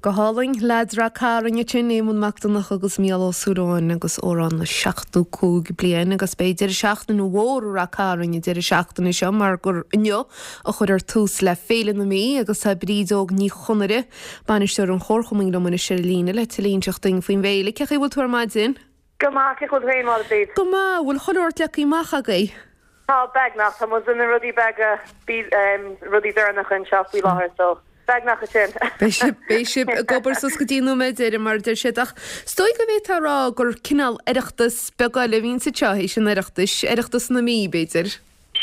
Go hálainn, Leaids Rath Cairn ansin, Éamonn Mac Donncha agus Mícheál Ó Súilleabháin agus amhrán na 75 bliain agus beidh deireadh seachtaine mhór i Rath Cairn an deireadh seachtaine seo mar gur inniu a chuirfear tús le Féile na Mí agus tá Bríd Óg Ní Chonaire, bainisteoir an Chomharchumainn liom anois ar an líne le tuilleadh a inseacht duinn faoin bhféile. Cén chaoi a bhfuil tú ar maidin? Go maith, cén chaoi a bhfuil tú féin, a Bhríd? Go maith, an bhfuil chuile shórt leagtha amach agaibh? Tá, beagnach. Tá muid na rudaí beaga, rudaí deireanacha anseo faoi láthair so beagnach ansin. Beidh sibh, beidh sibh ag obair suas go dtí an nóiméad deiridh mar a deir siad ach is dóigh go bhféadfá a rá gur cineál Oireachtas beag eile a bhíonn anseo théis an Oireachtais, Oireachtas na Mí b'fhéidir.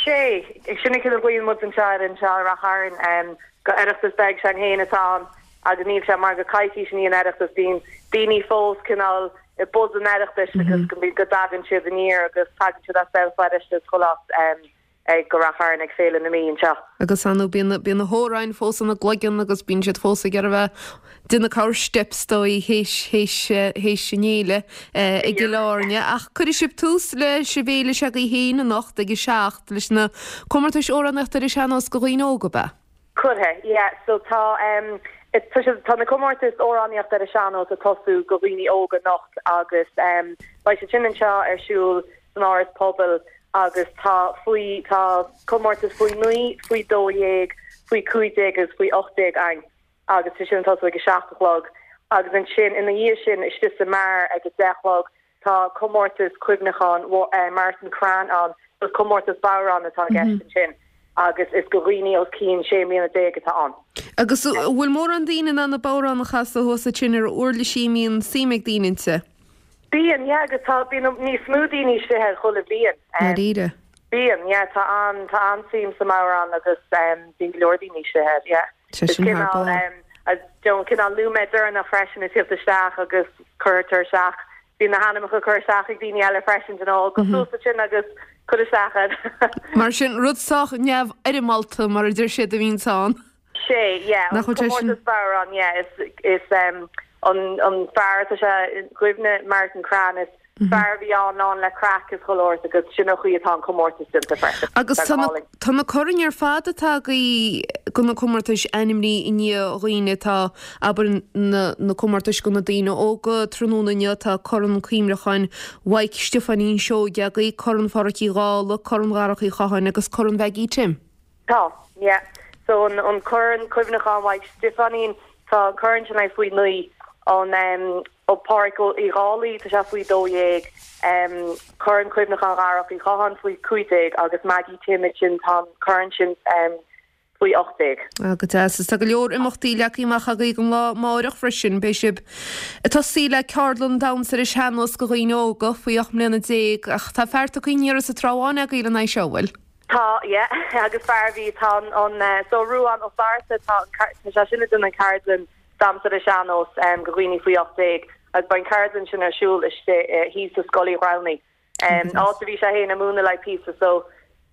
Sé, sin an cineál a ghlaonn muid anseo air anseo i Rath Chairn, gur Oireachtas beag s'againn féin atá ann agus níl sé mar gur coicís i ndiaidh an Oireachtais, bíonn daoine fós cineál i buzz an Oireachtais agus go go dtagann siad aniar agus tagann siad as Béal Feirste is chuile áit ag go Rath Chairn ag Féile na Mí anseo. Agus ar ndóigh bíonn bíonn na hamhráin fós ina gcloigeann agus bíonn siad fós ag iarraidh a bheith ag déanamh corr steip is dóigh théis théis théis an fhéile i gCill Airne. Ach cuirfidh sibh tús leis an bhféile s'agaibh féin anocht ag a 7 leis na comórtais amhránaíochta ar an sean-nós do dhaoine óga, ab ea? Cuirfidh, yeah. So tá em tá sé tá na comórtais amhránaíochta ar an sean-nós ag tosú go dhaoine óga anocht agus em beidh siad sin anseo ar siúl san Áras Pobail agus tá faoi tá comórtas faoi 9, faoi 12, faoi 15 agus faoi 18 againn agus tá sin ag tosú ag a 7 a chlog agus ansin ina dhiaidh sin istigh sa mbeár ag a 10 a chlog Tá comórtas cuimhneacháin Martin Crean ann, is comórtas bodhrán atá i gceist ansin agus is go dhaoine os cionn 16 mbliana atá ann. Agus an bhfuil mórán daoine in ann an bodhrán a chasadh thuas ansin ar uirlisí a mbíonn suim ag daoine inti? Bíonn, yeah, agus tá, bíonn níos mó daoine istigh air chuile bhliain. Dáiríre? Bíonn, yeah, tá an, tá an-suim sa mbodhrán agus bíonn go leor daoine istigh air, yeah. Sé sin thar barr. Is cineál nóiméad deireanach freisin ag tíocht isteach agus cuirtear isteach, bíonn na hainmneacha curtha isteach ag daoine eile freisin, you know, gabh suas ansin agus cuir isteach iad. Mar sin, rud sách neamhfhoirmeálta, mar a deir siad, a bhíonns ann. Sé, yeah, an comórtas bodhrán, yeah, is, is an, an fear atá sé i gcuimhne, Martin Crean, is fear a bhí ann lán le craic is chuile shórt agus sin an chaoi atá an comórtas déanta freisin. Agus tá na, tá na coirn ar fad atá agaibh go na comórtais ainmnithe i ndiaidh dhaoine atá, abair, na, na comórtais go na daoine óga tráthnóna inniu tá Corn Cuimhneacháin Mhaidhc Stiofáinín Seoige agaibh, Corn Pháraic Uí Dhálaigh, Corn Dharach Uí Chatháin agus Corn Mhaggie Tim. Tá, yeah. So an, an Corn Cuimhneacháin Mhaidhc Stiofáinín, tá an corn sin like faoi 9, an em, ó Páraic Uí Dhálaigh, tá sé faoi 12, em, Corn Cuimhneacháin Dharach Uí Chatháin faoi 15 agus Maggie Tim ansin tá an corn sin em, faoi 18. Ah, go deas. Is tá go leor imeachtaí leagtha amach agaibh don lá amáireach freisin. Beidh sibh ag tosaí le ceardlann damhsa ar an sean-nós do dhaoine óga faoi 18 mbliana ach tá fear tugtha aniar as an Trá Bháin agaibh lena aghaidh seo, an bhfuil? Tá, yeah, agus fear a bhí, tá an, an, eh, so Ruán Ó Flatharta, tá an, tá sé sin ag déanamh an ceardlann damhsa ar an sean-nós em go dhaoine faoi 18 agus beidh an ceardlann sin ar siúl istigh eh thíos i Scoil Uí Ghramhnaigh, em áit a bhí sé fhéin ag múineadh le píosa so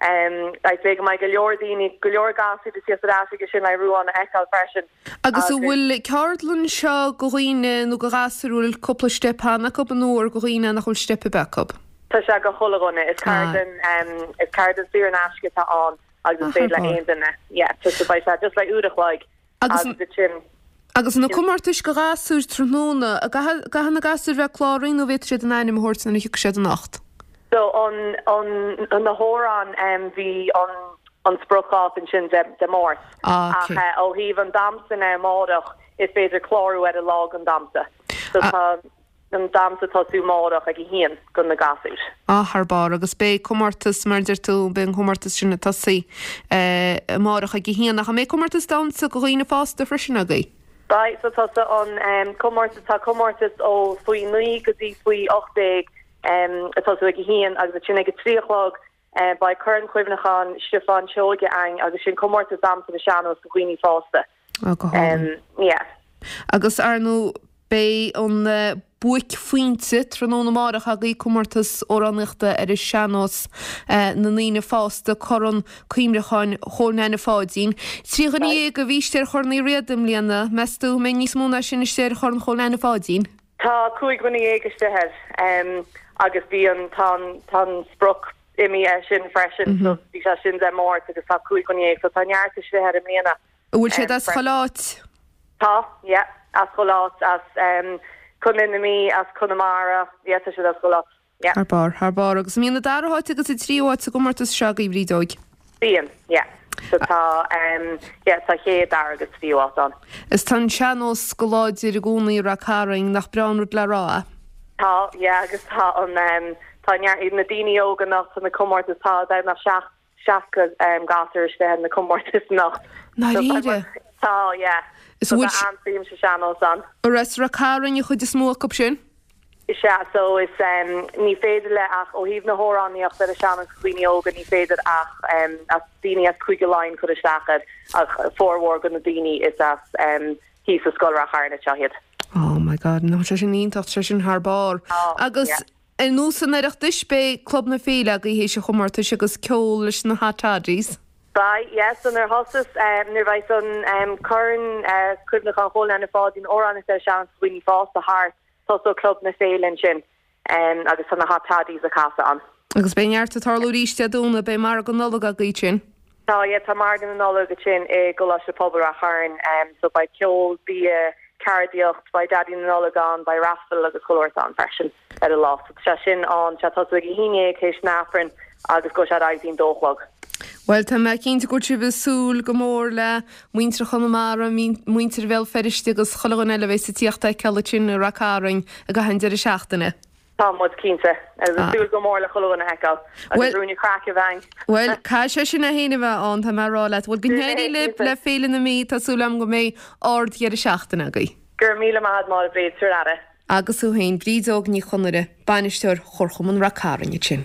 em I'd say go mbeidh go leor daoine, go leor gasúir ag tíocht ar ais aige sin le Ruán a fheiceáil freisin. Agus an bhfuil ceardlann seo go dhaoine nó go ghasúir a bhfuil cúpla steip cheana acu nó ar go dhaoine nach bhfuil steip ar bith acu? Tá sé go chuile dhuine. Is ceardlann is ceardlann saor in aisce atá ann agus is féidir le aon duine. Yeah, so beidh sé just like uair a chloig agus ansin. Agus na comórtais go ghasúir tráthnóna, an gcaithfidh na gasúir bheith cláraithe nó bhféadfaidh siad a n-ainm a thabhairt nuair a thiocfaidh siad anocht? So an an na hamhráin bhí an an spriocdháta ansin Dé Máirt. Ah, ok. Ach ó thaobh an damhsa de amárach is féidir clárú ar an lá don damhsa. So tá an damhsa ag tosú amárach ag a haon go na gasúir. Ah, thar barr. Agus beidh comórtas, mar a deir tú, beidh an comórtas sin ag tosaí amárach ag a haon. Ach an mbeidh comórtas damhsa go dhaoine fásta freisin agaibh? Beidh, so tá an comórtas, tá comórtas ó faoi 9 go dtí faoi 18 ag tosú ag a haon agus ansin ag a 3 a chlog beidh Corn Cuimhneacháin Stiofán Seoige againn agus sin comórtas damhsa ar an sean-nós do dhaoine fásta. Ah, go hálainn. Yeah. Agus ar ndóigh beidh an buaicphointe tráthnóna amárach agaibh, comórtas amhránaíochta ar an sean-nós na ndaoine fásta, Corn Cuimhneacháin Chóil Neaine Pháidín. 13 dhuine a bhí istigh ar Chorn Uí Riada i mbliana. Meas tú an mbeidh níos mó ná sin istigh ar Chorn Chóil Neaine Pháidín? Tá 15 dhuine istigh air agus bhí an, tá an, tá an sprioc imithe air sin freisin so bhí sé sin Dé Máirt agus tá 15 dhuine so tá neart istigh air i mbliana. An bhfuil siad as chuile áit? Tá, yeah. as chuile áit, as Contae na Mí, as Conamara, yeah, tá siad as chuile áit, yeah. Thar barr, thar barr. Agus an mbíonn an dara háit agus an tríú háit sa gcomórtas seo agaibh, a Bhrídeoig? Bíonn, yeah. So tá, yeah, tá chéad, dara agus tríú háit ann. Is tá an sean-nós go láidir i gcónaí i Rath Cairn, nach breá an rud le rá é? Tá, yeah, agus tá an, tá neart, na daoine óga anocht, tá na comórtais, tá beagnach 60 gasúr istigh ar na comórtais anocht. Ndáiríre? Tá, yeah. Is bhfuil. Tá an-suim sa sean-nós ann. An as Rath Cairn an chuid is mó acu sin? Is ea, so is ní féidir le ach ó thaobh na hamhránaíochta ar an sean-nós do dhaoine óga ní féidir ach as daoine as Cúige Laighean cur isteach air ach formhór de na daoine is as thíos i Scoil Rath Chairn anseo iad. Oh my God, tá sé sin iontach, tá sé sin thar barr. Agus Yeah. ar nós an Oireachtais beidh Club na Féile agaibh théis an chomórtais agus ceol leis na Hot Toddies. Beidh, yeah, so nuair a thosas, nuair a bheidh an Corn Cuimhneacháin Chóil Neaine Pháidín amhránaíocht ar an sean-nós do dhaoine fásta thart, Tosóidh Club na Féile ansin agus tá na Hot Toddies ag casadh ann. Agus beidh neart ag tarlú arís Dé Domhnaigh, beidh Margadh Nollag agaibh ansin. Tá, yeah, tá Margadh na Nollag ansin i gColáiste Pobail Rath Chairn, so beidh ceol, bia, ceardaíocht, beidh Daidí na Nollag ann, beidh raffle agus chuile shórt ann freisin ar an lá. So tá sé sin ann, tá sé ag tosú ag a haon dhéag théis an Aifrinn agus gabhfaidh sé ar aghaidh go dtí an dó a chlog. Bhuel, tá mé cinnte go bhfuil sibh ag súil go mór le muintir Chonamara, muintir Bhéal Feirste agus chuile dhuine eile a bheas ag tíocht a fheiceáil ansin i Rath Cairn i gcaitheamh an deireadh seachtaine. Tá muid cinnte. Agus ag súil go mór le chuile dhuine a fheiceáil. Agus ruainne craic a bheith ann. Bhuel, caithfidh sé sin é féin a bheith ann, tá mé ag rá leat. Bhuel, go n-éirí libh le Féile na Mí, tá súil agam go mbeidh ard-dheireadh seachtaine agaibh. Go raibh míle maith agat, Máire Bríd, tabhair aire. Agus thú féin, Bríd Óg Ní Chonaire, Bainisteoir Chomharchumann Rath Cairn ansin.